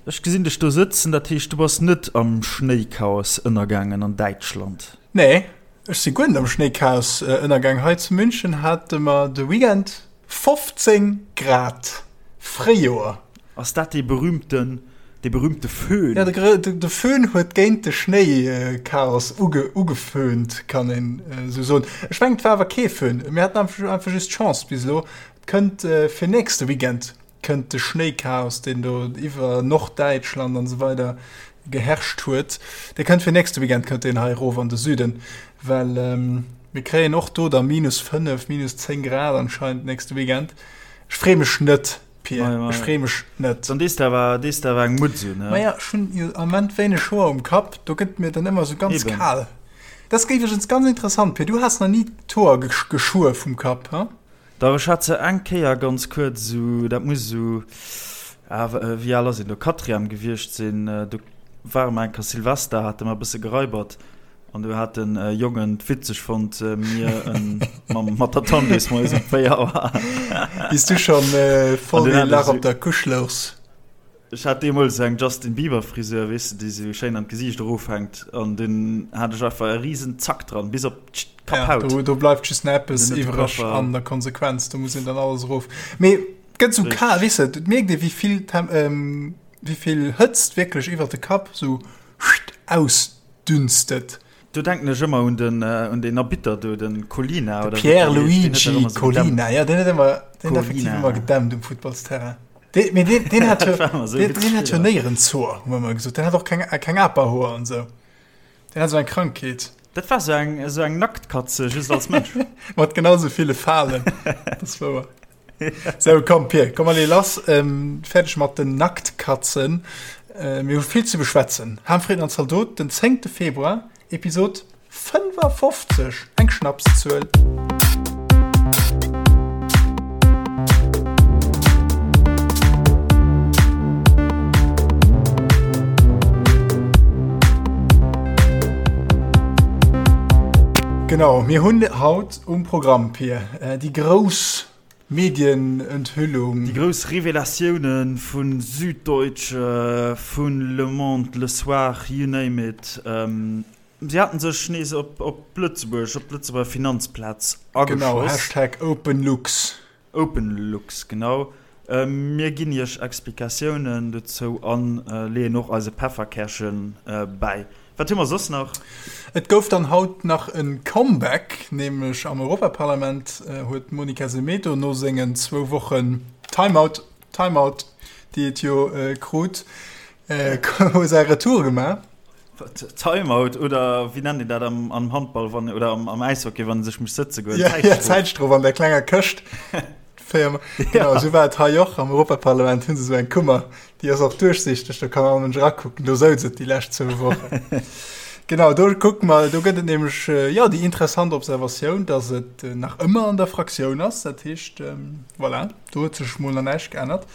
Ech gesinn dech do sëtzen, dat heescht du bass net am Schnéichaos ënnergaangen an Däitschland? Nee, ech si guer net am Schnéichaos ënnergaang. Hei zu München hate mer de Weekend 15 Grad, Fréijoer. Ass dat dee berühmten, dee berühmte Föhn? Ja, de Föhn huet géint de Schnéichaos ugeföhnt, kann een esou soen. Ech mengen, et war awer kee Föhn, mir haten einfach just Chance bis elo. Et kënnt fir nächste Weekend kënnt de Schnéichaos, deen do iwwer Norddäitschland an esou weider geherrscht huet, dee kënnt fir nächste Weekend kënnt deen hei erof an de Süden, well mir kréien och do da minus 5, minus 10 Grad anscheinend nächste Weekend. Ech freeë mech net, Pir, ech freeë mech net. Dann dees de awer, dees de awer eng Mutz un, he? Maja, ech hunn jo am Ament wéineg Hoer um Kapp, do gëtt mir dann ëmmer esou ganz kal. Dat ass iwwregens ganz interessant, Pir, du has nach ni d'Hoer geschuer vum Kapp, he? Dach, ech hat se eng Kéier ganz kuerz esou, dat muss esou, ah, wéi al ass een do, Quatrième gewiescht sinn, do ware mer eng Kéier Silvester, hate mer e bësse geraibert an do hat den Jongen et witzeg fonnt, mir en mam, mat der Tandüsmäus um 4 Auer. Bis du schon voll dee Lach op der Couche louchs. Ech hat deemools eng Justin Bieber Frisur, weess de, déi sou schéin an d'Gesiicht erofhänkt an dunn hat ech einfach e riesen Zack dran, bis op d'Kapphaut. Ja, do, do bleift just nach eppes iwwereg an der Konsequenz, do muss een dann alles erof. Mee et gëtt sou kal, weess de, et mierkt ee wéi vill Tem-, wéi vill Hëtzt wierklech iwwer de Kapp sou ausdünstet. Do denken ech ëmmer un den, un deen Arbitter do, den Collina oder wéi deen heescht, deen huet dach ëmmer sou gedämpt. Pierluigi Collina, ja, deen huet ëmmer, deen huet effektiv ëmmer gedämpt um Futtballsterrain. Dee, mee deen, deen hat jo, deen, deen hat jo néierens Hoer, hu mer ëmmer gesot. Deen hat och keng, keng Aperhoer an esou. Deen hat esou eng Krankheet. Dat war sou eng, esou eng Nacktkatze, just als Mënsch. Mat genau sou ville Falen. Dat ass wouer. Sou, komm Pir, komm mer lee lass. Ähm, fäerdeg mat den Nacktkatzen. Äh, mir hu vill ze beschwätzen. Ham, Fritten an Zaldot, den 10. Februar, Episod 55, eng Schnapszuel. Genau, mir hunn haut um Programm, Pir, déi grouss Medienenthüllung. Déi grouss Revelatiounen vu Süddeutsche, vu Le Monde, Le Soir, you name it. Si haten sech nees op Lëtzebuerg, op d'Lëtzebuerger Finanzplaz ageschoss. Genau, Hashtag OpenLux. OpenLux, genau. Mir ginn Iech Explikatiounen dozou a leeën och eise Pefferkärche bäi. Wat hu mer soss nach? Et gouf dann haut nach e Comeback, nämlech am Europaparlament huet d'Monica Semedo no sengen zwou Wochen Timeout, Timeout, déi et jo krut, säi Retour gemaach. Timeout oder wéi nennt een dat am am Handball wann oder am am Äishockey wann e sech muss sëtze goen? Ja, ja, Zäitstrof an der klenger Këscht. Féier genau, esou war et hei och am Europaparlament hunn se esou eng Kummer, déi ass och duerchsichteg, do kann all Mënsch erakucken, do souz et déi lescht zwou Wochen. Genau, do kucke mer, do gëtt et nämlech jo déi interessant Observatioun, datt et nach ëmmer an der Fraktioun ass, dat heescht, voilà, do huet sech mol nach näischt geännert.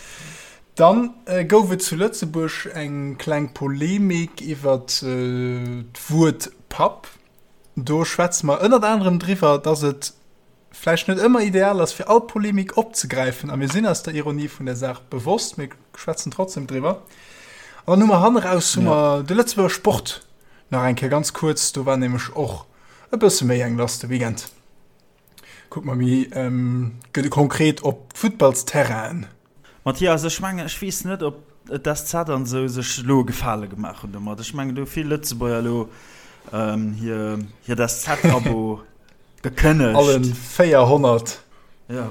Dann gouf et zu Lëtzebuerg eng kleng Polemik iwwer d'Wuert Papp. Do schwätze mer ënnert anerem driwwer, dass et vläicht net ëmmer ideal ass, fir all Polemik opzegräifen. A mir sinn eis der Ironie vun der Saach bewosst, mir schwätzen trotzdem driwwer. An dann hu mer hanneraus hu mer de Lëtzebuerger Sport nach eng Kéier ganz kuerz. Do war nämlech och e bësse méi eng lass de Weekend. Kucke mer méi konkret op d'Futtballsterrainen. Mathias, ech mengen, ech weess net, ob d'SZ an esou sech elo e Gefale gemaach hunn domat. Ech mengen, do hu vill Lëtzebuerger elo hir, hiert SZ-Abo gekënnegt. Allen 400. Ja.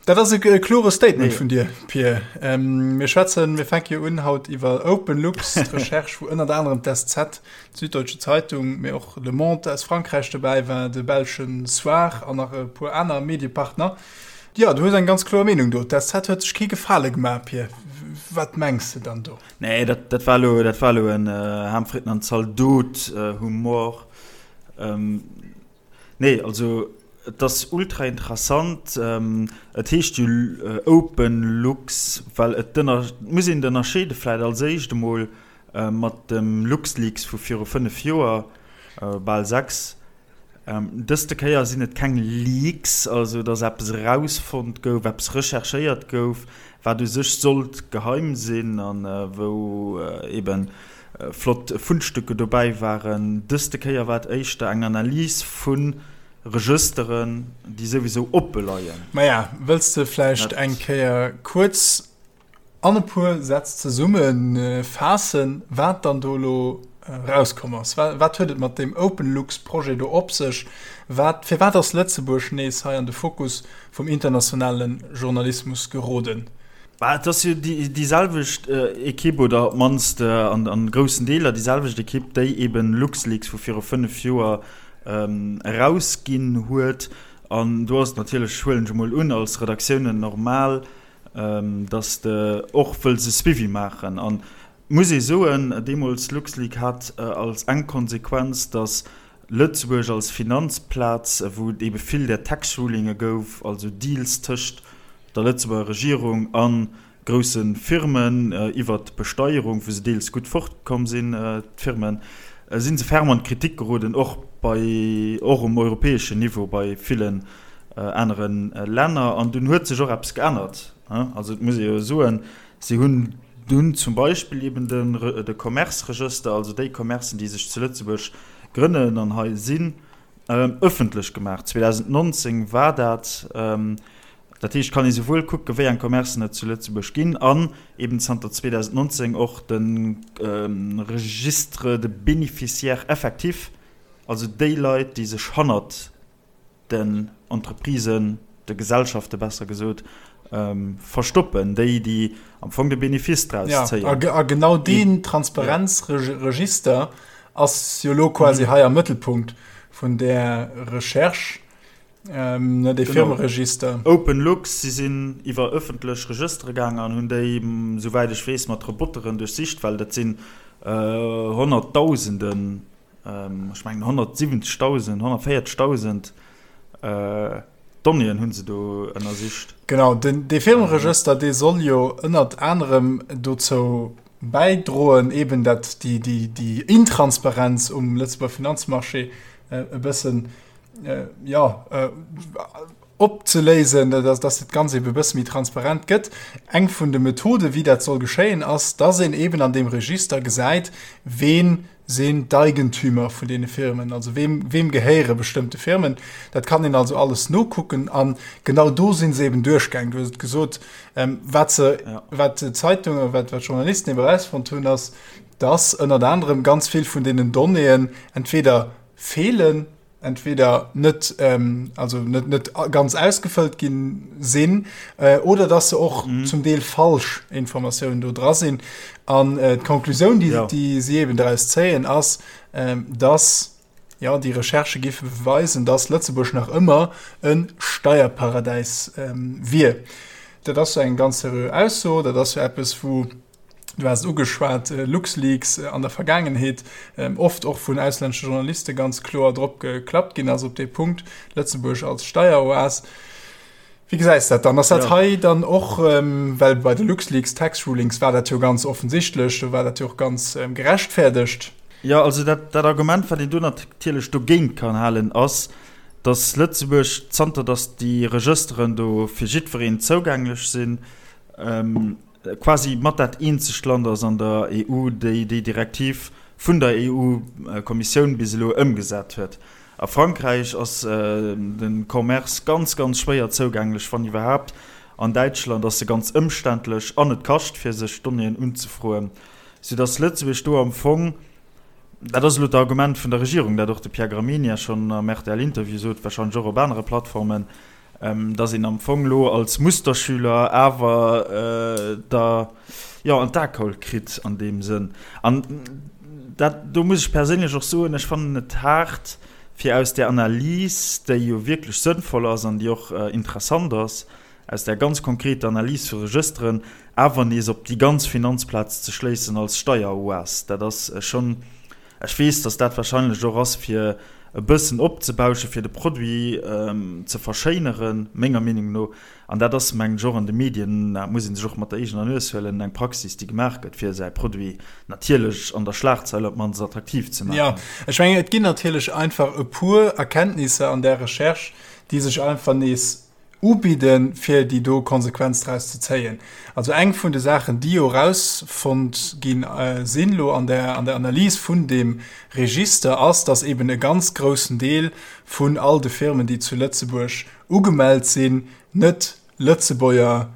Dat ass e klore Statement vun dir, Pir. Mir schwätzen, mir fänke jo un haut iwwer OpenLux, d'Recherche, wou ënnert anerem d'SZ, d'Süddeutsche Zeitung, mee och Le Monde aus Frankräich dobäi war, de belschen Soir an nach e puer aner Mediepartner. Jo, du hues eng ganz kloer Meenung do. D'SZ huet sech kee Gefale gemaach, Pir. Wat mengs de dann do? Nee, dat, dat war elo, dat war elo en Ham, Fritten an Zaldot Humor. Nee, also et ass ultra interessant. Et heescht jo OpenLux, well et ënner, et muss een et ënnerscheede vläicht als éischt emol mat dem LuxLeaks vu viru 5 Joer, bal 6. Dëste Kéier sinn et keng Leaks, also datt eppes erausfonnt gouf, eppes recherchéiert gouf, wat u sech sollt geheim sinn a wou eebe flott Fundstücke dobäi waren. Dëste Kéier war et éischter eng Analys vu Regësteren, déi souwisou oppe leien. Maja, wëlls de vläicht eng Kéier kuerz an e puer Sätz zesumme faassen, wat dann do elo erauskomm ass? Wat huet et mat deem OpenLux-Projet do op sech? Wat, firwat ass Lëtzebuerg nees hei an de Fokus vum internationale Journalismus geroden? Bah, et ass jo déi selwecht Ekipp, oder op d'mannst an groussen Deeler déi selwecht Ekipp, déi eben LuxLeaks vu viru 5 Joer erausginn huet. An do ass et natierlech, huelen ech emol un, als Redaktiounen normal, dass de och wëlls e Suivi maachen. An muss ee soen, deemools LuxLeak hat als eng Konsequenz, dass Lëtzebuerg als Finanzplaz, wou et eebe vill där Tax Rulinge gouf, also Deals tëscht der Lëtzebuerger Regierung a grousse Firmen iwwert d'Besteierung, wou se deels gutt fortkomm sinn, d'Firmen, si se ferm an d'Kritik geroden, och bei, och um europäeschen Niveau bei villen anere Länner. An dunn huet sech och eppes geännert. Also et muss ee jo soen, si hunn dunn zum Beispill eben de Commerce-Regëster, also déi Commercen, déi sech zu Lëtzebuerg grënnen an hei sinn, ëffentlech gemaach. 2019 war dat. Dat heescht, kann ee souwuel kucke wéi eng Commercen et zu Lëtzebuerg ginn an eben zanter 2019 och de Registre de bénéficiaires effectifs, also déi Leit, déi sech hannert den Entreprisen, de Gesellschafte besser gesot, verstoppen, déi, déi am Fong de Benefice draus zéien. Ja, a genau deen Transparenzregister ass jo elo quasi hei am Mëttelpunkt vun där Recherche, dee Firmeregister. OpenLux, si sinn iwwer ëffentlech Regëstere gaangen an hunn déi, souwäit ech weess, mat Roboteren duerchsicht, well dat sinn Honnertdausenden Ech mengen 170.000, 140.000 Donnéeën hu se do ënnersicht. Genau, den, dee Firmeregëster, dee soll jo ënnert anerem dozou bäidroen, eben dat déi, déi, déi Intransparenz um Lëtzebuerger Finanzmarché e bëssen, jo, opzeléisen, dass dat Ganzt eben e bësse méi transparent gëtt. Eng vun de Methoden, wéi dat soll geschéien, ass, dass een eben an deem Register gesäit, ween sinn d'Eigentümer vun deene Firmen, also weem, weem gehéiere bestëmmte Firmen. Dat kann een also alles nokucken an genau do si se eben duerchgaang. Du hues et gesot, wat se, wat d'Zeitungen, wat d'Journalisten eben erausfonnt hunn, ass, dass ënnert anerem ganz vill vun deenen Donnéeën entweder feelen, entweder net ähm, also net net ganz ausgefëllt ginn sinn äh, oder dass se och mhm. zum Deel falsch Informatiounen do dra sinn an äh, d'Konklusioun die, ja. die sie eben daraus zéien ass ähm, dass ja die Recherche giffe beweisen dass Lëtzebuerg nach ëmmer en Steierparadäis ähm, wier. Dat ass eng ganz seriö Ausso, dat ass jo eppes wou Du has et ugeschwat, LuxLeaks an der Vergaangenheet oft och vun auslännesche Journaliste ganz kloer drop geklappt ginn ass op dee Punkt, Lëtzebuerg als Steieroas. Wéi gesäis dat dann? Ass dat hei dann och, well bei de LuxLeaks Tax Rulings war dat jo ganz offensichtlech, do war dat jo och ganz gerechtfäerdegt. Jo, also dat, dat Argument, wat een do natierlech dogéint kann halen, ass, datt Lëtzebuerg, zanter datt déi Regësteren do fir jiddwereen zougänglech sinn, quasi mat dat eenzegt Land ass an der EU, déi déi Direktiv vun der EU-Kommissioun bis elo ëmgesat huet. A Frankräich ass de Commerce ganz, ganz schwéier zougänglech, wann iwwerhaapt. An Däitschland ass e ganz ëmständlech an et kascht, fir sech Donnéeën unzefroen, soudass Lëtzebuerg do am Fong, dat ass elo d'Argument vun der Regierung, dat och de Pierre Gramegna schonn am RTL-Interview sot, warscheinlech och op anere Plattformen, dass een am Fong elo als Musterschüler awer da jo an d'Akaul kritt an deem Sënn. An dat, do muss ech perséinlech och soen, ech fannen et haart, fir aus där Analys, déi jo wierklech sënnvoll ass an déi och interessant ass, aus där ganz konkreter Analys vu Regësteren awer nees op déi ganz Finanzplaz ze schléissen als Steieroas. Dat ass schonn, Ech weess, datt dat wahrscheinlech och ass, fir e bëssen opzebauschen, fir de Produit ze verschéineren, menger Meenung no. An dat ass, mengen ech, och an de Medien, dat muss ee sech och mat der eegener Nues huelen, eng Praxis, déi gemaach gëtt, fir säi Produit natierlech an der Schlagzeil op d'mannst attraktiv ze maachen. Jo, ech mengen, et ginn natierlech einfach e puer Erkenntnisser an där Recherche, déi sech einfach nees ubidden, fir déi do Konsequenz draus ze zéien. Also eng vun de Saachen, déi jo erausfonnt gi sinn elo an der an der Analys vun deem Register, ass, dass eben e ganz groussen Deel vun all de Firmen, déi zu Lëtzebuerg ugemellt sinn, net Lëtzebuerger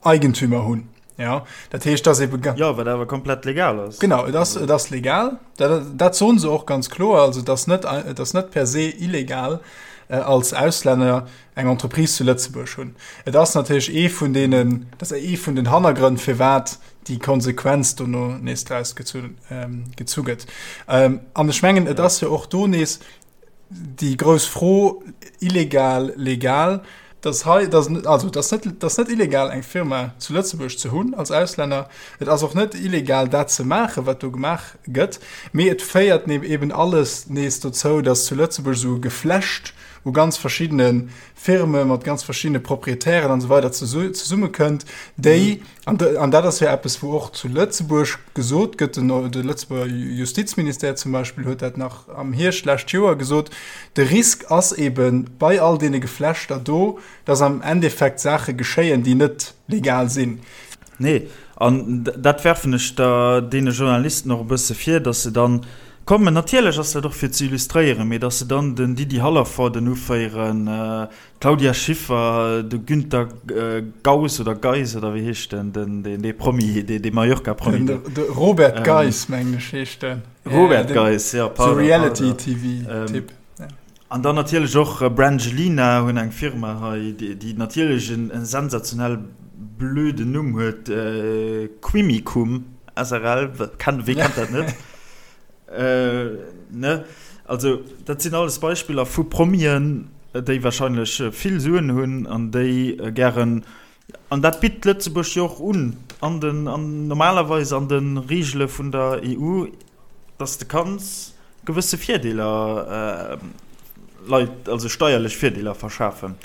Eigentümer hunn. Ja, dat heescht, dass eben. Jo, wat awer komplett legal ass. Genau, et ass, et ass legal. Dat, dat soen se och ganz kloer. Also et ass net, et ass net per se illegal, als Auslänner eng Entreprise zu Lëtzebuerg hunn. Et ass natierlech ee vun deenen, dat ass ee vun den Hannergrënn, firwat déi Konsequenz dono nees draus gezu, gezu gëtt. An ech mengen, et ass jo och do nees, déi grouss Fro, illegal, legal, dass hei, dass, also dass net, dass net illegal eng Firma zu Lëtzebuerg ze hunn als Auslänner, et ass och net illegal dat ze maachen, wat do gemaach gëtt, mee et féiert eben alles nees dozou, dass zu Lëtzebuerg esou e Geflecht u ganz verschiddene Firme mat ganz verschiddene Proprietären an esou weider zesummekënnt, déi, an dat ass jo eppes, wou och zu Lëtzebuerg gesot gëtt, de Lëtzebuerger Justizministère zum Beispill huet dat nach am Hierscht d'lescht Joer gesot, de Risk ass ebe bei all deene Geflechter do, datt am Endeffekt Saache geschéien, déi net legal sinn. Nee, an dat werfen ech da deene Journalisten och e bësse vir, datt se dann kommen, natierlech ass dat och fir ze illustréieren, mee datt se dann den Didi Hallervorden uféieren, d'Claudia Schiffer, de Günter Gauss oder Geis oder wéi heescht den, den, deen, dee Promi, dee, dee Mallorca-Promi do. De Robert Geis, mengen ech, heescht den. Robert Geis, jo, pardon. Sou Reality-TV-Typ. An dann natierlech och Brangelina hunn eng Firma hei, déi natierlech en sensationell blöden Numm huet, Quimicum srl. Wee kennt dat net? Ne? Also dat sinn alles Beispiller vu Promien, déi warscheinlech vill Suen hunn an déi gären, an dat bitt Lëtzebuerg jo och un, an den, an normalerweis an de Reegele vun der EU, dass de kanns gewësse Virdeeler Leit, also steierlech Virdeeler verschafen.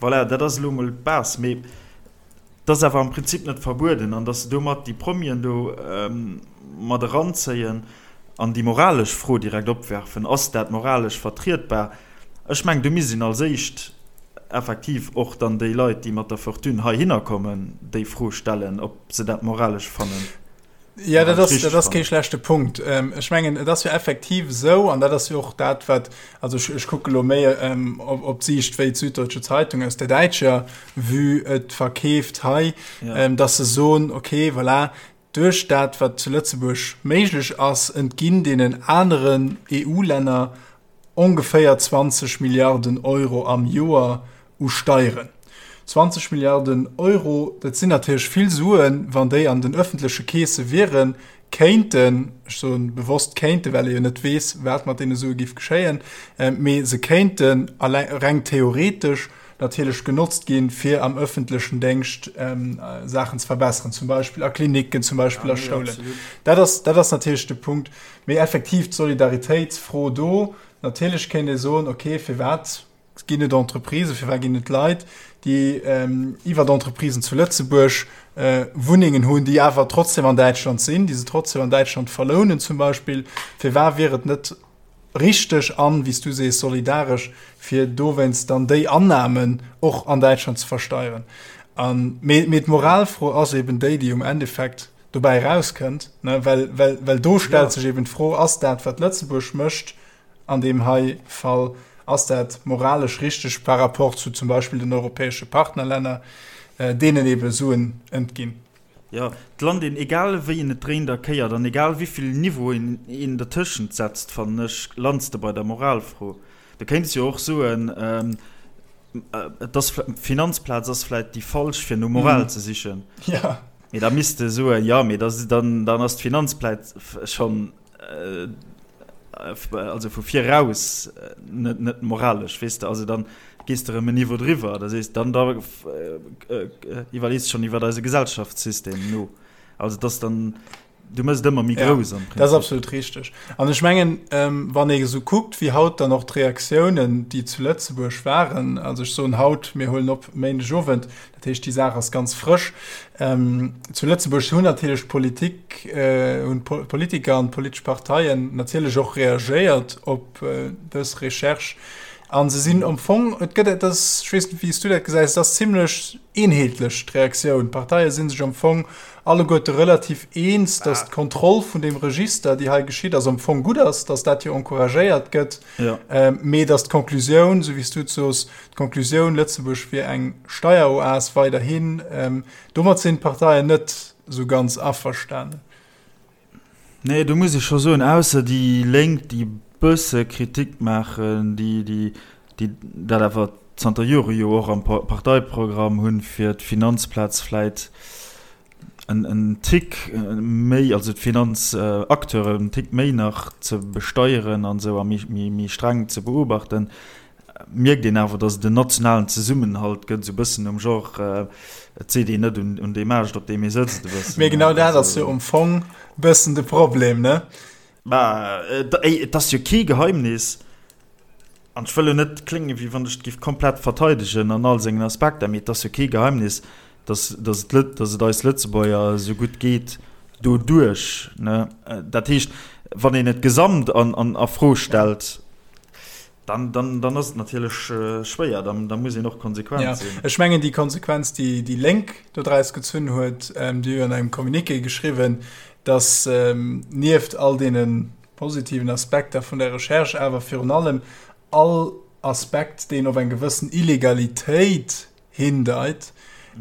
Voilà, dat ass elo emol d'Base. Mee et ass awer am Prinzip net verbueden. An dass se domat déi Promien do mat eranzéien an déi moralesch Fro direkt opwerfen, Ass dat moralesch vertrietbar? Ech mengen, do misst een als éischt effektiv och dann déi Leit, déi mat der Fortune heihinner kommen, déi Fro stellen, ob se dat moralesch fannen. Ja, dat ass, dat ass kee schlechte Punkt. Ähm, ech mengen, et ass jo effektiv esou, an dat ass jo och dat, wat, also ech, ech kucke lo méi ähm, op, op d'Siicht wéi d'Süddeutsche Zeitung aus der däitscher Vue et verkeeft hei, ja. ähm, dass se soen, okay, voilà, duerch dat, wat zu Lëtzebuerg méiglech ass, entginn deenen aneren EU-Länner ongeféier 20 Milliarden Euro am Joer u Steieren. 20 Milliarden Euro, dat sinn natierlech vill Suen, wann déi an den öffentleche Keese wieren, kéinten, ech soen bewosst kéinten, well ee jo net weess, wat mat deene Sue géif geschéien, mee se kéinten reng theoretesch natierlech genotzt ginn, fir am öffentlechen Déngscht Saachen ze verbessern, zum Beispill a Klinicken, zum Beispill a Schoulen. Dat ass, dat ass natierlech de Punkt. Mee effektiv d'Solidaritéitsfro do, natierlech kéint ee soen, okay, firwat ginn et Entreprisen, firwat ginn et Leit, déi iwwer Entreprisen zu Lëtzebuerg Wunnengen hunn, déi awer trotzdem an Däitschland sinn, déi se trotzdem an Däitschland verlounen zum Beispill. Firwat wier et net richteg an, wéi s du sees, solidaresch, fir dowéinst dann déi Annahmen och an Däitschland ze versteieren? Mee d'Moralfro ass eben déi, déi um Endeffekt dobäi erauskënnt, ne, well, well, well do stellt sech eben d'Fro, ass dat, wat Lëtzebuerg mécht an deem hei Fall, ass dat moralesch richteg par rapport zu zum Beispill den europäesche Partnerlänner, deenen ebe Suen entginn? Jo, et lant een, egal wéi een et dréint a kéiert an egal wéivill Niveauen een dertëschent setzt, fannen ech, lands de bei der Moralfro. Du kéints jo och soen, et ass, d'Finanzplaz ass vläit déi falsch, fir no Moral ze sichen. Jo. Mee da misst de soen, jo, mee da, dann, dann ass d'Finanzplaz schonn, also vu viraus net, net moralesch, weess de. Also dann gees de erëm en Niveau driwwer, da sees dann, da iwwerlees de schonn iwwer eise Gesellschaftssystem no. Also et ass dann. Du mëss et ëmmer méi grouss am Prinzip. Dat ass absolut richteg. An ech mengen, wann ee esou kuckt, wéi haut dann och d'Reaktiounen, déi zu Lëtzebuerg waren, also ech soen haut, mir huelen op Méindegowend, dat heescht déi Saach ass ganz frësch, zu Lëtzebuerg hunn natierlech d'Politik, hunn d'Politiker an d'politesch Parteien natierlech och reagéiert op dës Recherche. A se sinn am Fong, et gëtt, et ass, ech weess net, wéi s du dat gesäis, et ass zimlech eenheetlech d'Reaktioun. D'Parteie si sech am Fong alleguerte relativ eens, datt d'Kontroll vun deem Register, déi hei geschitt ass, am Fong gutt ass, datt dat jo encouragéiert gëtt, mee datt d'Konklusioun, esou wéi s du et sos, d'Konklusioun, Lëtzebuerg wier eng Steieroas weiderhin, domat sinn d'Parteien net esou ganz averstanen. Nee, do muss ech scho soen, ausser déi Lénk, déi e bësse Kritik maachen, déi, déi, déi dat awer zanter Jore jo och am Parteiprogramm hunn, fir d'Finanzplaz vläit en, en Tick méi, also d'Finanzacteuren en Tick méi nach ze besteieren an esou a méi, méi, méi streng ze beobachten, mierkt een awer, datt et en nationalen Zesummenhalt gëtt, esou e bëssen um Genre, et seet een net un deem Aascht, op deem ee sëtzt, e bëssen. Mee genau dat ass jo am Fong e bëssen de Problem, ne? Mä et ass jo kee Geheimnis, an ech wëll elo net kléngen, wéi wann ech et géif komplett verteidegen an all sengen Aspekter, mee et ass jo kee Geheimnis, datt et, datt et eis Lëtzebuerger esou gutt geet doduerch, ne? Dat heescht, wann een et gesamt an a Fro stellt, Dann, dann, dann ass et natierlech schwéier, dann, da muss een och konsequent ja, sinn. Ech mengen déi Konsequenz, déi déi Lénk do draus gezunn huet, ähm, déi hu an engem Communiqué geschriwwen, datt ähm, nieft all deene positiven Aspekter vun der Recherche awer virun allem all Aspekt, deen op eng gewëssen Illegalitéit hindeit,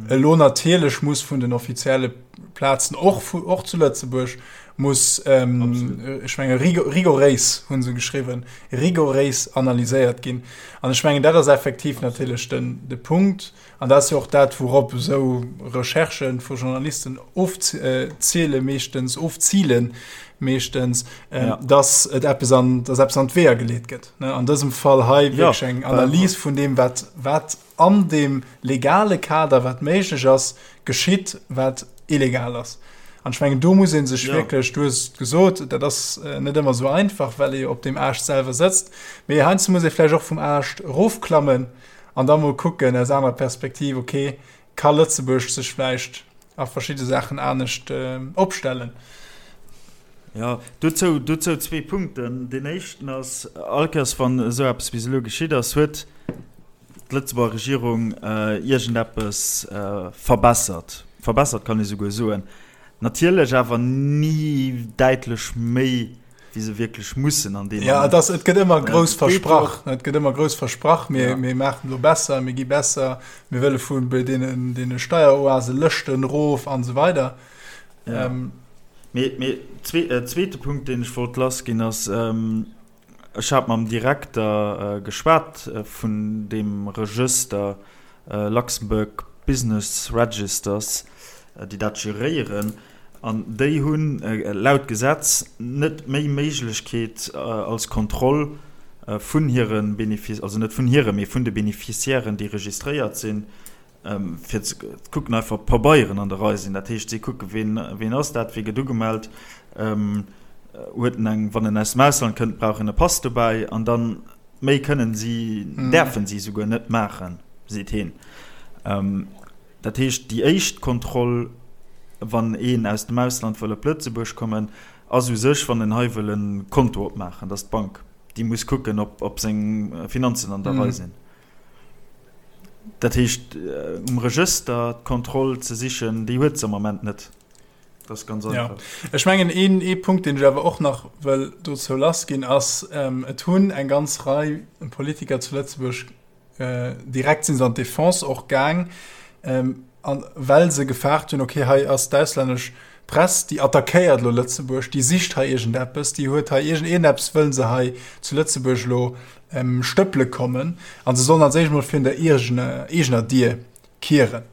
elo natierlech muss vun den offizielle Plazen, och, och zu Lëtzebuerg, muss, ähm, ech menge rigoréis hu se geschriwwen, rigoréis analyséiert ginn. An ech mengen, dat ass effektiv natierlech den, de Punkt. An dat ass jo och dat, wourop esou Recherchë vu Journalisten ofziele meeschtens, ofzilen meeschtens, ähm, ja. dass et eppes an, dass eppes an d'Weeër geleet gëtt. Ne? An dësem Fall hei wierklech ja, eng Analys vun deem, wat, wat an deem legale Kader, wat méiglech ass, geschitt, wat illegal ass. An ech mengen, do muss ee sech wierklech, du hues et gesot, dat ass net ëmmer esou einfach, well ee jo op deem Aascht selwer sëtzt, mee heiansdo muss ee vläicht och vum Aascht erofklammen an da mol kucken aus anerer Perspektiv, okay, ka Lëtzebuerg sech vläicht a verschidde Saachen anescht opstellen? Jo, dozou, dozou zwee Punkten. Deen éischten ass, all Kéiers wann esou eppes bis elo geschitt ass, huet d'Lëtzebuerger Regierung iergendeppes verbessert, verbessert kann ee souguer soen, natierlech awer ni däitlech méi, wéi se wierklech mussen an deem Moment. Jo, et gëtt ëmmer grouss versprach, et gëtt ëmmer grouss versprach, mir maachen elo besser, mir gi besser, mir wëlle vu deenen Steieroase Lëschten erof an esou weider. Mee zweete Punkt, deen ech wollt lassginn, ass, Ech hat mam Direkter geschwat vun deem Regëster, Luxembourg Business Registers, déi dat geréieren, an déi hunn laut Gesetz net méi Méiglechkeet als Kontroll vun hire Benefice, also net vun hire, mee vun de Beneficiairen, déi registréiert sinn, fir ze kucken einfach ob d'Pabeieren an der Rei sinn. Dat heescht, si kucke ween, ween ass dat, wee gëtt ugemellt, huet en eng, wann en aus dem Ausland kënnt, brauch en e Pass dobäi an dann méi kënnen si, däerfen si souguer net maachen, seet heen. Dat heescht, déi éischt Kontroll, wann een aus dem Ausland wëll op Lëtzebuerg kommen, ass u sech, wann en hei wëll e Konto opmaachen, dass d'Bank, déi muss kucken, ob, ob seng Finanzen an der Rei sinn. Dat heescht, um Regëster d'Kontroll ze sichen, déi huet se am Ament net. Dat ass ganz einfach. Ja. Ech mengen, een, ee Punkt, deen ech awer och nach wëll dozou lassginn, ass, Et hunn eng ganz Rei Politiker zu Lëtzebuerg, direkt si se an d'Defense och gaang, an well se gefaart hunn, okay, hei ass d'auslännesch Press, déi attackéiert elo Lëtzebuerg, déi sicht hei iergendeppes, déi huet hei iergendeppes, wëlle se hei zu Lëtzebuerg elo stëppele kommen an se sollen als éischt mol virun der eegener Dier kieren.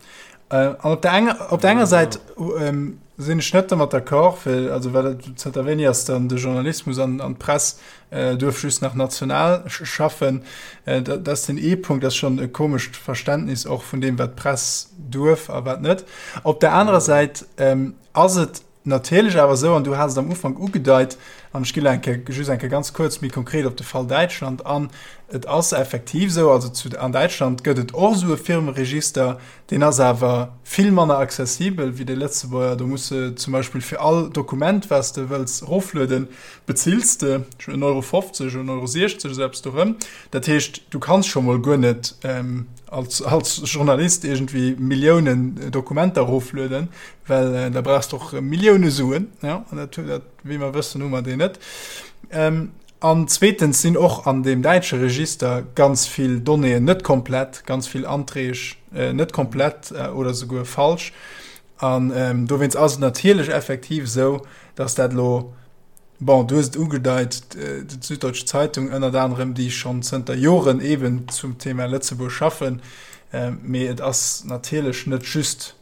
An op der enger, op der enger Säit sinn ech net domat d'accord, well also well zënter wéini ass dann de Journalismus an an d'Press duerf just nach national schaffen. Dat ass den ee Punkt, dat ass schonn e komescht Verständnis och vun deem wat d'Press duerf a wat net. Op der anerer Säit ass et. natierlech awer esou, an du has et am Ufank ugedeit, an ech ginn elo eng Kéier, just eng Kéier ganz kuerz méi konkret op de Fall Däitschland an, et ass effektiv esou, also zu, an Däitschland gëtt et och esou e Firmeregister, deen ass awer vill manner accessibel wéi dee Lëtzebuerger. Do muss de zum Beispill fir all Dokument, wat s de wëlls eroflueden, bezills de en Euro 50, en Euro 60, esou eppes dorëm. Dat heescht, du kanns scho mol guer net als, als Journalist iergendwéi Milliounen Dokumenter eroflueden, well da brauchs de och Millioune Suen, ja, an dat, dat, wéi mer wëssen, hu mer déi net. An zweetens sinn och an deem däitsche Register ganz vill Donnéeën net komplett, ganz vill Anträg net komplett oder souguer falsch. An dowéinst ass et natierlech effektiv esou, dass dat elo, bon, du hues et ugedeit, d'Süddeutsche Zeitung ënnert anerem, déi schonn zënter Joren eeben zum Thema Lëtzebuerg schaffen, mee et ass natierlech net just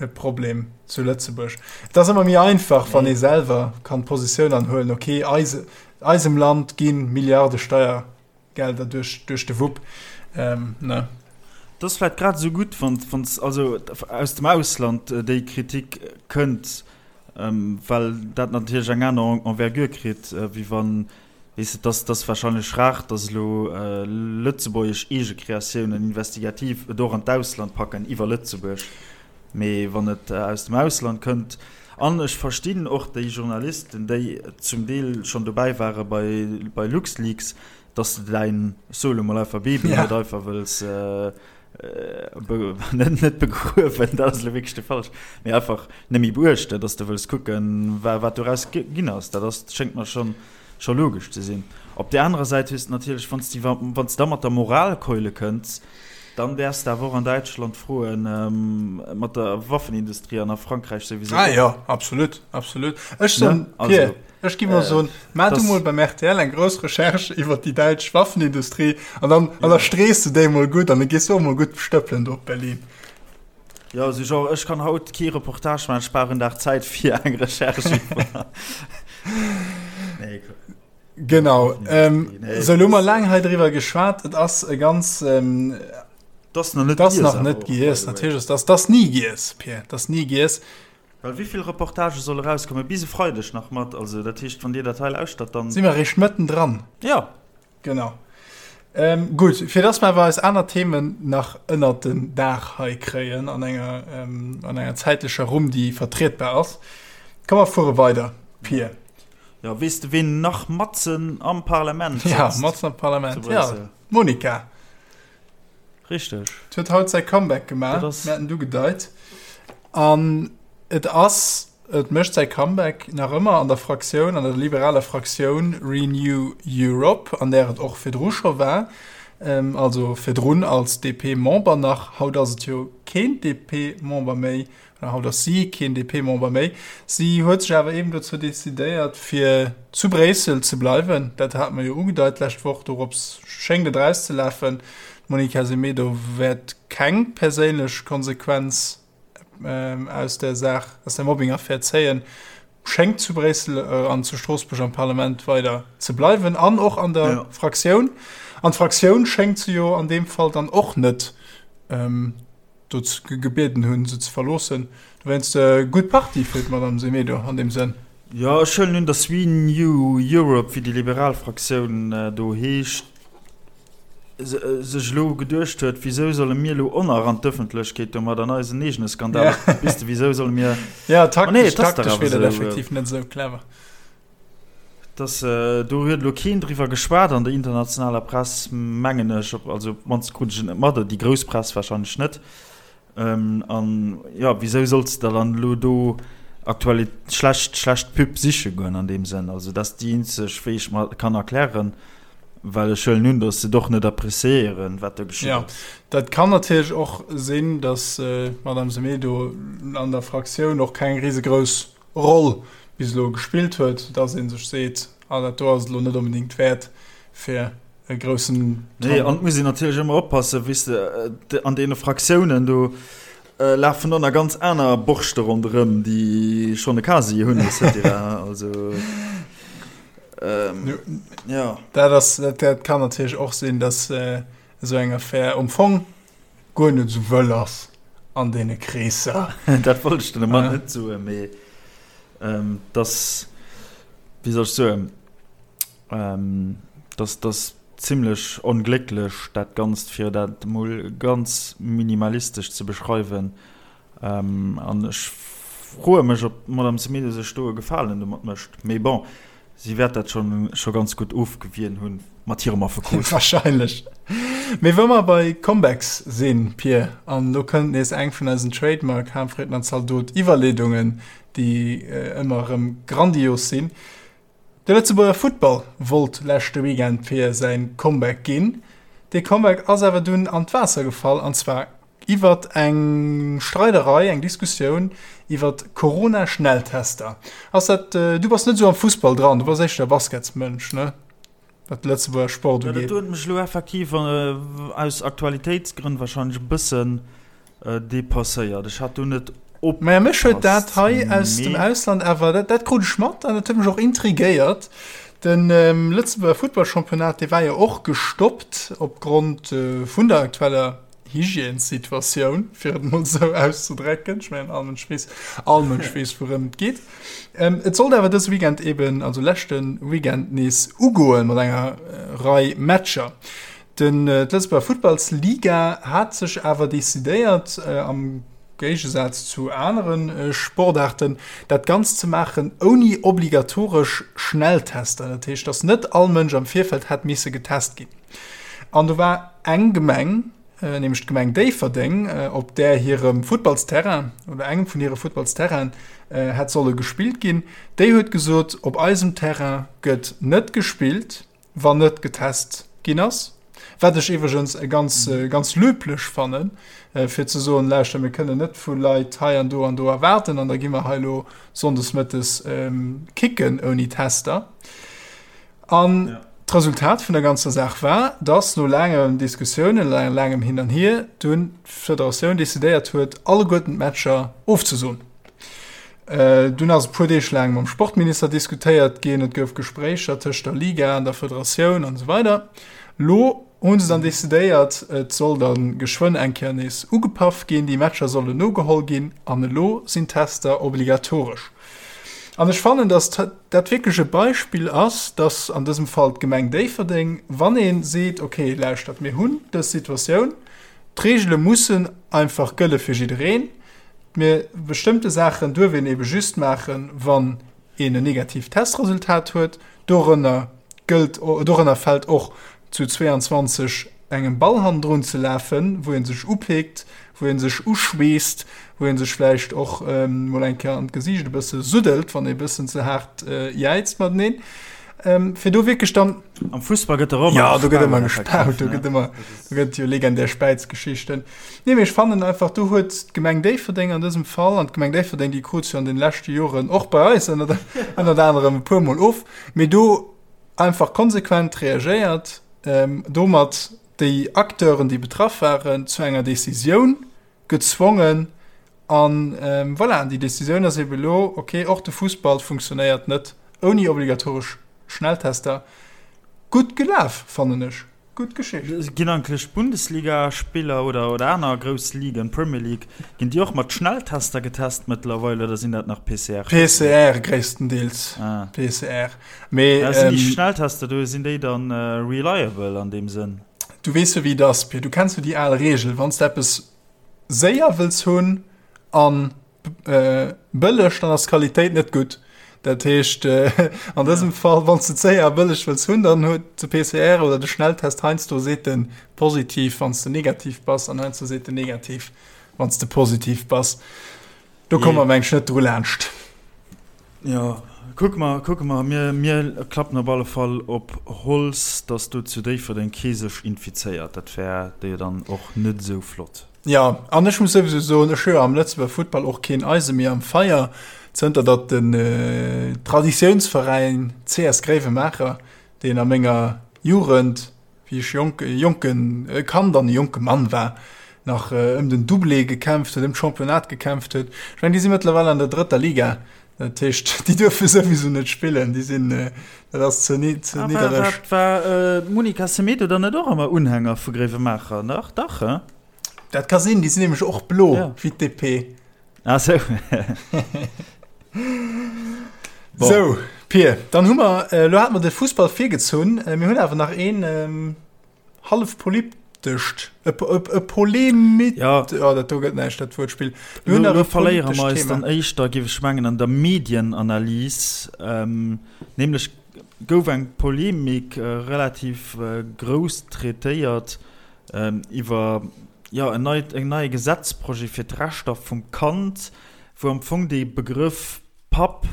e Problem zu Lëtzebuerg. Et ass ëmmer méi einfach, wann ee selwer kann d'Positioun anhuelen, okay, eise, eisem Land gi Milliarde Steiergelder duerch, duerch de Wupp. Ähm, ne? Et ass vläicht grad esou gutt, wann, wann also aus dem Ausland déi Kritik kënnt, well dat natierlech eng aner Envergure kritt, wéi wann Weess de, dass dass wahrscheinlech rar, dass elo lëtzebuergesch Eegekreatiounen investigativ et och an d'Ausland packen iwwer Lëtzebuerg. Mee wann et aus dem Ausland kënnt, an ech verstinn och déi Journalisten, déi zum Deel schonn dobäi ware bei bei LuxLeaks, dass de däin, ech soe lo mol einfach Baby net einfach wëlls net net begruewen, dat ass elo wierklech de falsch, mee einfach net méi beuechten, dass de wëlls kucken, wat doraus ginn ass. Dat ass, schéngt mer schonn scho logesch ze sinn. Op där anerer Säit hues de natierlech, wann s de wann s de da mat der Moralkeule kënns, dann däerfs de awer och an Däitschland froen, mat der Waffenindustrie an a Frankräich souwisou Ah jo, absolut, absolut. Ech soen, ne? Pierre, ech gi mol soen, maach du mol beim rtl eng grouss Recherche iwwer déi däitsch Waffenindustrie an dann an da strees de déi mol gutt an da gees du och mol gutt stëppelen do op Berlin. Jo, sou genre, ech kann haut kee Reportage maachen, ech brauch en Dag Zäit fir eng Recherche iwwer. Nee, Genau. Ähm, nee, so, lo mer laang hei driwwer geschwat. Et ass e ganz. Ähm, das nach net das nach net giess. Natierlech ass das, das nie giess, Pierre. Das nie giess. Well wéi vill Reportagë solle rauskommen? Bis e Freideg nach mat. Also dat heescht, wann Dir dat hei lauschtert, dann. Si mer eréischt mëtten dran. Ja. Genau. Ähm, gutt, fir dass mer awer eis aner Themen nach ënnert den Daach hei kréien an enger, ähm, an enger zäitlecher Rumm, déi vertrietbar ass, komm mer fuere weider, Pir. Ja, weess de, ween nach matzen am Parlament sëtzt? Ja, matzen am Parlament, ja. D'Monica. Richteg. Huet haut säi Comeback gemaach, mir haten et ugedeit. An et ass, et mécht säi Comeback nach ëmmer an der Fraktioun, an der liberaler Fraktioun Renew Europe, an där et och virdru scho war, also virdrun als DP-Member nach. Haut ass et jo keen DP-Member méi. Haut ass si keen DP-Member méi. Si huet sech awer eben dozou decidéiert, fir zu Bréissel ze bleiwen. Dat hate mer jo ugedeit d'lescht Woch. Dorops schéngt et erauszelafen. D'Monica Semedo wäert keng perséinlech Konsequenz aus der Saach, aus der Mobbing-Affär zéien, schéngt zu Bréissel an zu Stroossbuerg am Parlament weider ze bleiwen an och an der Fraktioun. An d'Fraktioun schéngt se jo an deem Fall dann och net dozou gebieden hunn, se ze verloossen. Dowéinst gutt Partie fir d'Madame Semedo an deem Sënn. Jo, ech huelen un, datt Renew Europe, wéi déi liberal Fraktioun do heescht, sech elo geduecht huet, Wisou solle mir elo och nach an d'Ëffentlechkeet domat an eisen eegene Skandal? Weess de, wisou solle mir. Jo, taktesch, taktesch wier dat effektiv net esou clever. Dass do huet elo keen driwwer geschwat an der internationaler Press, mengen ech, also op d'mannst krut ech et net mat, déi grouss Press wahrscheinlech net. An jo, wisou solls de dann elo do aktuell schlecht, schlecht Pub siche goen an deem Sënn? Also dat ass déi eenzeg, wéi ech mer kann erklären, well ech huelen un, dass se et och net appréciéieren, wat do geschitt ass. Jo, dat kann natierlech och sinn, dass d'Madame Semedo an der Fraktioun och keng risegrouss Roll bis elo gespillt huet, dass ee sech seet, ah dat do ass et elo net onbedéngt wäert fir e groussen. Nee, an et muss een natierlech ëmmer oppassen, weess de, an deene Fraktiounen do lafen och nach ganz aner Borschte ronderëm, déi schonn e Casier hunn et cetera. Also jo. Dat ass, dat kann natierlech och sinn, dass esou eng Affär um Fong guer net esou wëll ass an deene Kreesser. Dat wollt ech den Ament net soen, mee. Dass, wéi soll ech soen, dass dass zimlech onglécklech dat Ganzt, fir dat emol ganz minimalistesch ze beschreiwen. An ech froe mech, ob d'Madame Semedo sech do e Gefalen domat mécht. Mee bon, si wäert dat scho ganz gutt ofgewien hunn mat hirem Affekot. Wahrscheinlech. Mee wa mer bei Comebacks sinn, Pir, an elo kënnt nees eng vun eisen Trademark Harmfriedner Zaldot Iwwerleedungen, déi ëmmer erëm grandios sinn. De Lëtzebuerger Futtball wollt leschte Weekend fir säin Comeback ginn. Dee Comeback ass awer dunn an d'Waasser gefall, an zwar iwwert eng Streiderei, eng Diskussioun iwwert Corona-Schnelltester. Ass dat, du bass net esou am Fussball dran, du bass éischter Basketsmënsch, ne, wat de Lëtzebuerger Sport ugeet? Dat huet mech elo effektiv aus Aktualitéitsgrënn warscheinlech e bëssen Depasséiert. Ech hat do net opgepasst. Maja, mech huet dat hei aus dem Ausland awer, dat, dat krut ech mat an dat huet mech och intrigéiert. De Lëtzebuerger Futtballchampionnat, dee war jo och gestoppt opgrond vun der aktueller Hygiènessituatioun, fir et mol esou auszedrécken. Ech mengen, all Mënsch weess, all Mënsch weess, wourëm et geet. Et sollt awer dëse Weekend eben, also leschte Weekend nees ugoen mat enger Rei Matcher. Den d'Lëtzebuerger Futtballsliga hat sech awer decidéiert, am Géigesaz zu anere Sportaarten, dat Ganzt ze maachen ouni obligatoresch Schnelltester. Dat heescht, datt net all Mënsch am Virfeld hätt misse getest ginn. An do war eng Gemeng, nämlech d'Gemeng Déifferdeng, op där hirem Futtballsterrain oder engem vun hire Futtballsterrainen hätt solle gespillt ginn, déi huet gesot, op eisem Terrain gëtt net gespillt. wann net getest ginn ass, wat ech iwwregens e ganz, ganz löblich fannen, fir ze soen, lauschter, mir kënnen net vu Leit hei an do an do erwaarden an da gi mer hei elo sonndes mëttes kicken ouni Tester. An d'Resultat vun der ganzer Saach war, dass no laangen Diskussiounen, laangem Hin an Hier, dunn d'Federatioun decidéiert huet, alleguerten d'Matcher ofzesoen. Dunn ass e puer Deeg laang mam Sportminister diskutéiert ginn, et gouf Gespréicher tëscht der Liga an der Federatioun an esou weider. Lo hu se dann decidéiert, et soll da geschwënn eng Kéier nees ugepaff ginn, déi Matcher sollen nogeholl ginn an elo sinn d'Tester obligatoresch. An ech fannen, datt dat wierklech e Beispill ass, datt an dësem Fall d'Gemeng Déifferdeng, wann ee seet, okay, lauschtert, mir hunn dës Situatioun, d'Reegele mussen einfach gëlle fir jiddereen, Mee bestëmmte Saachen duerf een ebe just maachen, wann een en negatiivt Testresultat huet. Dorënner gëllt, dorënner fält och zu 22 engem Ball hannendrun ze lafen, wou ee sech upeekt, wou ee sech uschweesst, wou ee sech vläicht och mol eng Kéier an d'Gesiicht e bësse suddelt, wann ee bëssen ze haart jäizt mateneen, fir do wierklech dann. Am Fussball gëtt der ëmmer gespaut. Jo, do gëtt ëmmer gespaut, do gëtt ëmmer, do gëtt jo legendär Späizgeschichten. Nee, mee ech fannen einfach, do huet d'Gemeng Déifferdeng an dësem Fall, an d'Gemeng Déifferdeng, déi krut jo an den leschte Joren och bei eis ënnert, ënnert anerem e puermol of, mee do einfach konsequent reagéiert, domat déi Acteuren, déi betraff waren, zu enger Décisioun gezwongen. An voilà, déi Décisioun ass ebe elo, okay, och de Fussball funktionéiert net ouni obligatoresch Schnelltester. Gutt gelaf, fannen ech. Gutt Geschicht. Ginn eigentlech d'Bundesliga-Spiller oder oder aner grouss Ligen, Premier League, ginn déi och mat Schnelltester getest mëttlerweil oder sinn dat nach PCR? PCR gréisstendeels. Ah. PCR. Mee, ja, sinn déi ähm, Schnelltester do, sinn déi dann äh, reliable an deem Sënn? Du weess jo wéi et ass, Pir. Du kenns jo déi al Reegel, wann s de eppes séier wëlls hunn an Bëlleg, dann ass d'Qualitéit net gutt. Dat heescht an dësem Fall, wann s de et séier a bëlleg wëlls hunn, dann huet de PCR oder de Schnelltest heiansdo seet en positiv, wann s de negativ bass, an heiansdo seet en negativ, wann s de positiv bass. Do komme mer, meng ech, net dru laanscht. Jo, kucke mer, kucke mer. Mir, mir klappen op alle Fall op Holz, dass do zu Déifferdeng kee sech infizéiert. Dat wär jo dann och net esou flott. Jo, an ech muss souwisou soen, ech hu jo am Lëtzebuerger Futtball och keen Eise méi am Feier, zënter datt den Traditiounsveräin CS Gréiwemaacher, deen a menger Jugend, wéi ech jonk, e jonke Kand an e jonke Mann war, nach ëm den Doublé gekämpft huet, ëm d'Championnat gekämpft huet. Ech mengen, déi si mëttlerweil an der drëtter Liga. Dat heescht, déi duerfe souwisou net spillen, déi sinn, dat ass ze niddereg. War d'Monica Semedo dann net och ëmmer Unhänger vu Gréiwemaacher? Dach, dach, he? Dat ka sinn, déi sinn nämlech och blo wéi d'DP. Ah sou. Bon. Sou, Pir, dann hu mer, elo hate mer de Fussball virgezunn. Mir hunn awer nach een hallef politescht, e, e, e Polemit, ja. oh, dat do gëtt näischt, dat Wuertspill. Mir hunn nach e verléiere mer eis dann éischter, géif ech mengen, an der Medienanalys. Ähm, nämlech gouf eng Polemik relativ grouss traitéiert iwwer, jo, en neit, en neie Gesetzprojet fir d'Rechter vum Kand, wou am Fong dee Begrëff Papp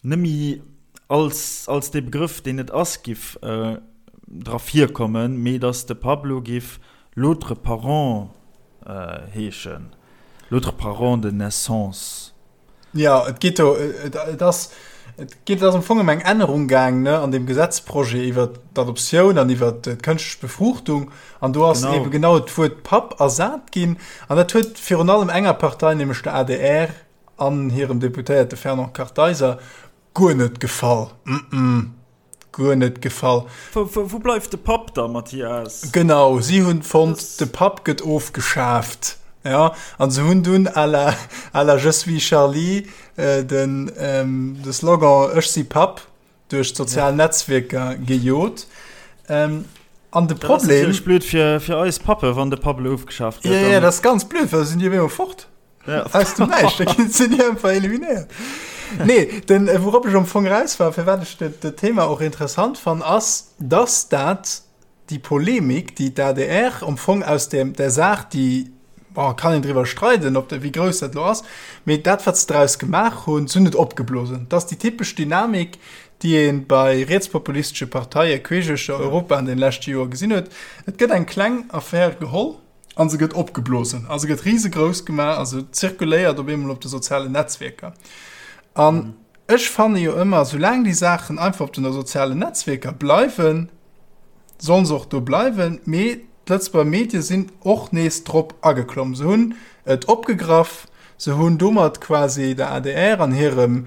nëmme als, als dee Begrëff, deen et ass, giff dra virkommen, mee datt de Papp elo giff l'autre parent heeschen, l'autre parent de naissance. Jo, et geet do, et ass, et geet, et ass am Fong ëm eng Ännerung gaang, ne, an deem Gesetzprojet iwwert d'Adoptioun an iwwert d'kënschtlech Befruchtung. An do ass genau. ebe genau d'Wuert Papp ersat ginn. An dat huet virun allem enger Partei, nämlech der adr an hirem Deputéierte Fernand Kartheiser, guer net gefall. Mm -mm. Guer net gefall. Wou bleift de Papp da, Mathias? Genau, si hunn fonnt, de Papp gëtt ofgeschaaft. Ja, an se hunn dunn à la, à la Je suis Charlie den, de Slogan Ech si Papp duerch d'sozial Netzwierker gejot. An de Problem. Dat ass natierlech blöd fir, fir eis Pappe, wann de Papp elo ofgeschaaft gëtt. Ja, ja, dat ass ganz blöd, well da sinn déi op eemol fort. Ja. Aus dem Näischt, da ginn sinn déi einfach eliminéiert. Nee, den, äh, wourop ech am Fong raus war, firwat ech dat, dat Thema och interessant fann, ass, dass dat déi Polemik, déi d'ADR am Fong aus dem, der Saach, déi, bon, kann een driwwer streiden, ob de, wéi grouss dat lo ass, mee dat, wat se draus gemaach hunn, se hunn et opgeblosen. Dat ass déi typesch Dynamik, déi ee bei rietspopulistesche Parteie queesch uechter Europa an den leschte Joer gesinn huet. Et gëtt eng kleng Affär geholl, A se gëtt opgeblosen a se gëtt risegrouss gemaach a se zirkuléiert op eemol op de sozialen Netzwierker. An ech fanne jo ëmmer, soulaang déi Saachen einfach op den sozialen Netzwierker bleiwen, sollen se och do bleiwen. Mee d'Lëtzebuerger Medie sinn och nees drop ageklomm. Se hunn et opgegraff, se hunn domat quasi der adr an hirem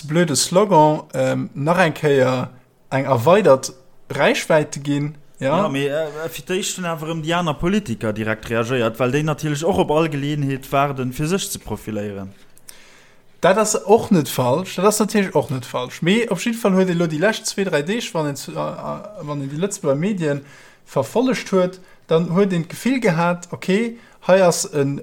blöde Slogan nach eng Kéier eng erweidert Räichwäite ginn. Ja, mee fir d'éischt hunn awer erëm déi aner Politiker direkt reagéiert, well déi natierlech och op all Geleeënheet waarden, fir sech ze profiléieren. Dat ass och net falsch, dat ass natierlech och net falsch. Mee op jidde Fall huet ee lo déi lescht zwee, dräi Deeg, wann een, wann een déi Lëtzebuerger Medien verfollegt huet, dann huet een d'Gefill gehat, okay, Hei ass en,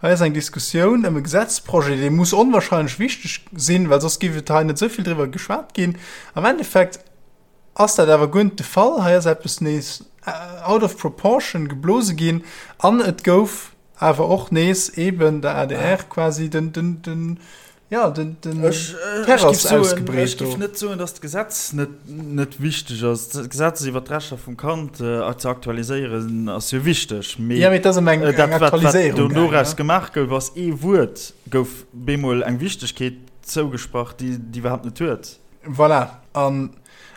hei ass eng Diskussioun ëm e Gesetzprojet, dee muss onwahrscheinlech wichteg sinn, well soss géif et hei net esou vill driwwer geschwat ginn. Am Endeffekt ass dat awer guer net de Fall. Hei ass eppes nees out of proportion geblose ginn an et gouf awer och nees eeben der adr quasi den, den, den, Ja, den, den ech, äh, Terrass ausgebreet. Ech géif net soen, datt d'Gesetz net, net wichteg ass. D'Gesetz iwwer d'Rechter vum Kand äh, ze aktualiséieren ass jo wichteg. Mee, ja, mee dat ass ëm eng, äh, dat, eng Aktualiséierung. Wat, wat doraus ja. gemaach gouf, ass ee Wuert, gouf bemol eng Wichtegkeet zougesprach, déi déi iwwerhaapt net huet. Voilà. An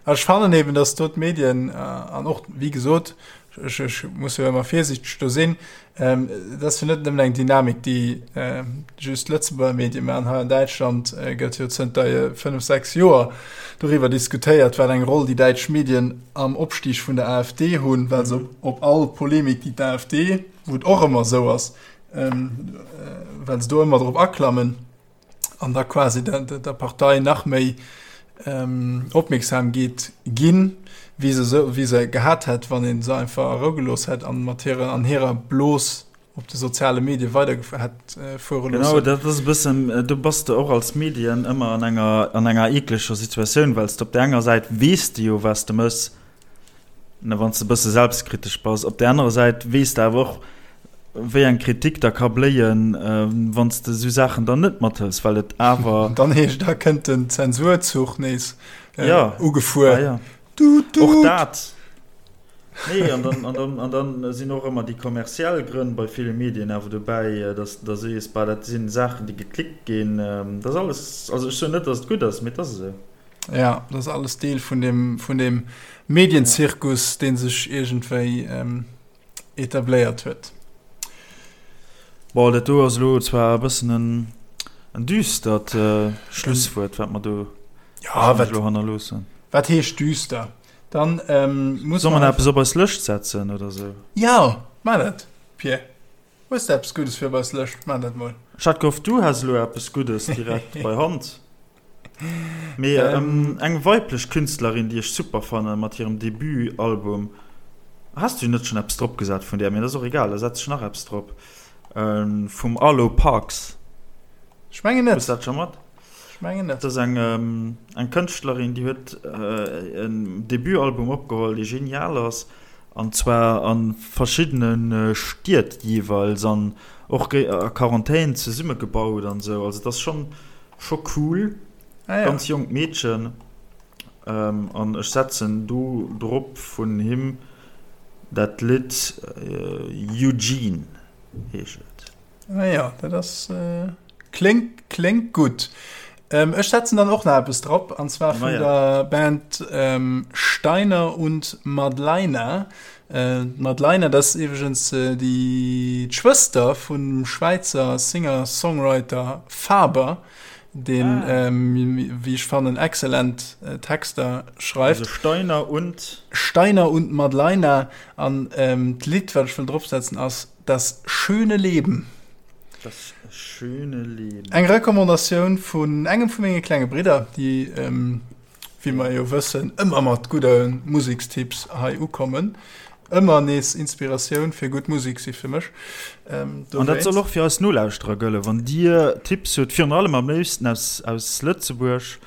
ech fannen eben, datt do d'Medien äh, an och, wéi gesot, ech, ech muss jo ëmmer virsiichteg do sinn, ähm, dat ass jo net nëmmen eng Dynamik, déi äh, just Lëtzebuerger Medie maachen. Hei an Däitschland äh, gëtt jo zënter äh, 5, 6 Joer doriwwer diskutéiert, wat eng Roll déi däitsch Medien am Opstieg vun der AfD hunn, well se op, op all Polemik, déi d'AfD, wou et och ëmmer esou ass, ähm, äh, well se do ëmmer drop aklammen, an da quasi der, der, der Partei nach méi ähm, Opmierksamkeet ginn, wéi se, so, wéi se gehat hätt, wann een se einfach a Rou gelooss hätt an mat hirer, an hirer Blos op de soziale Medie weider hätt äh, fuere loossen. Genau, dat ass e bëssen, äh, do bass de och als Medien ëmmer an enger, an enger eekleger Situatioun, well s de op der enger Säit weess de jo, wat s de mëss, Ne, wann s de e bësse selbstkritesch bass. Op där anerer Säit weess de awer och, wéi eng Kritik da ka bléien, wann s de esou Saachen dann net mathëls, well et awer. Dann heescht, da kënnt den Zensurzuch nees ugefuer. Ja, ja. Tut, tut. Och dat. Nee, an dann, an dann, an dann sinn och ëmmer déi kommerziell Grënn bei ville Medien awer dobäi, dass da sees, bah, dat sinn Saachen, déi geklickt ginn. Dat ass alles, also ech soen net, dass et gutt ass, mee et ass esou. Ja, dat ass alles Deel vun dem, vun dem Medienzirkus, dee sech iergendwéi ähm, etabléiert huet. Bon, dat do ass elo zwar e bëssen en, en düstert äh, Schlusswuert, wat mer do ja, wat, elo hannerloossen. Wat heescht düster? Dann ähm, muss Soll mer eppes op eis Lëscht setzen oder sou? Ja, mar dat, Pierre. Hues de eppes Guddes fir op eis Lëscht? Maach dat mol. Ech hat gehofft, du häss elo eppes Guddes direkt bei Hand. Mee eng weiblech Künstlerin, déi ech super fannen, mat hirem Debut-Album. Has du net schonn eppes drop gesat vun där? Mee dat ass och egal, da setz ech nach eppes drop. Vum Arlo Parks. Ech mengen net. Hues dat scho mat? Ech mengen net. Dat ass eng, eng Kënschtlerin, déi huet en Debutalbum opgeholl, dee genial ass. An zwar a verschiddene Stied jeeweils an och a Quarantän zesummegebaut an esou. Also et ass schonn scho cool. Ah, ja. Ganz jonkt Meedchen. An ech setzen do drop vun him dat Lidd Eugene heescht et. Ah ja, dat ass kléngt kléngt gutt. Ech setzen dann och nach eppes drop, an zwar vun der Band Steiner und Madlaina. D'Madlaina, dat ass iwwregens déi d'Schwëster vum Schwäizer Singer-Songwriter Faber, deen, wéi ech fannen, excellent Texter schreift. Also Steiner und? Steiner und Madlaina. An d'Lidd, wat ech wëll dropsetzen, ass Das schöne Leben. Das schöne Leben. Eng Recommandatioun vun engem vu menge klenge Bridder, déi, wéi mer jo wëssen, ëmmer mat gudde Musekstipps hei ukommen. Ëmmer nees Inspiratioun fir gutt Musek si fir mech. An dat soll och fir eis Nolauschterer gëllen. Wann Dir Tipps hutt, virun allem am léifsten aus, aus Lëtzebuerg,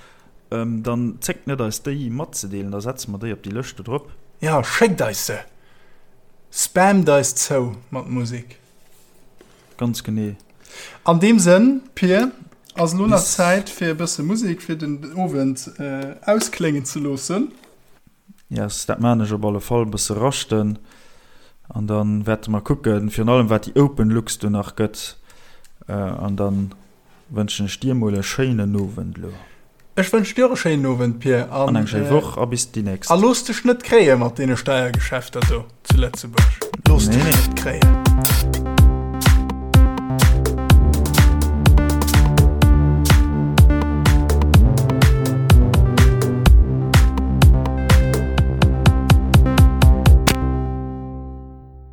dann zéckt net eis déi matzedeelen, da setze mer déi op déi Lëscht do drop. Jo, schéckt eis se! Spammt eis zou mat Musek. Ganz genee. An deem Sënn, Pir, ass elo nach Zäit fir e bësse Musek fir den Owend auskléngen ze loossen. Yes, dat maan ech op alle Fall, e bësse raschten an dann wäerte mer kucken, virun allem wat déi Open Lux do nach gëtt an dann Wënschen ech dir mol e schéinen Owend lo. Ech wënschen dir och e schéinen Owend, Pir, an eng schéi Woch a bis déi nächst. A looss dech net kréie mat deene Steiergeschäfter do zu Lëtzebuerg. Looss dech net kréien.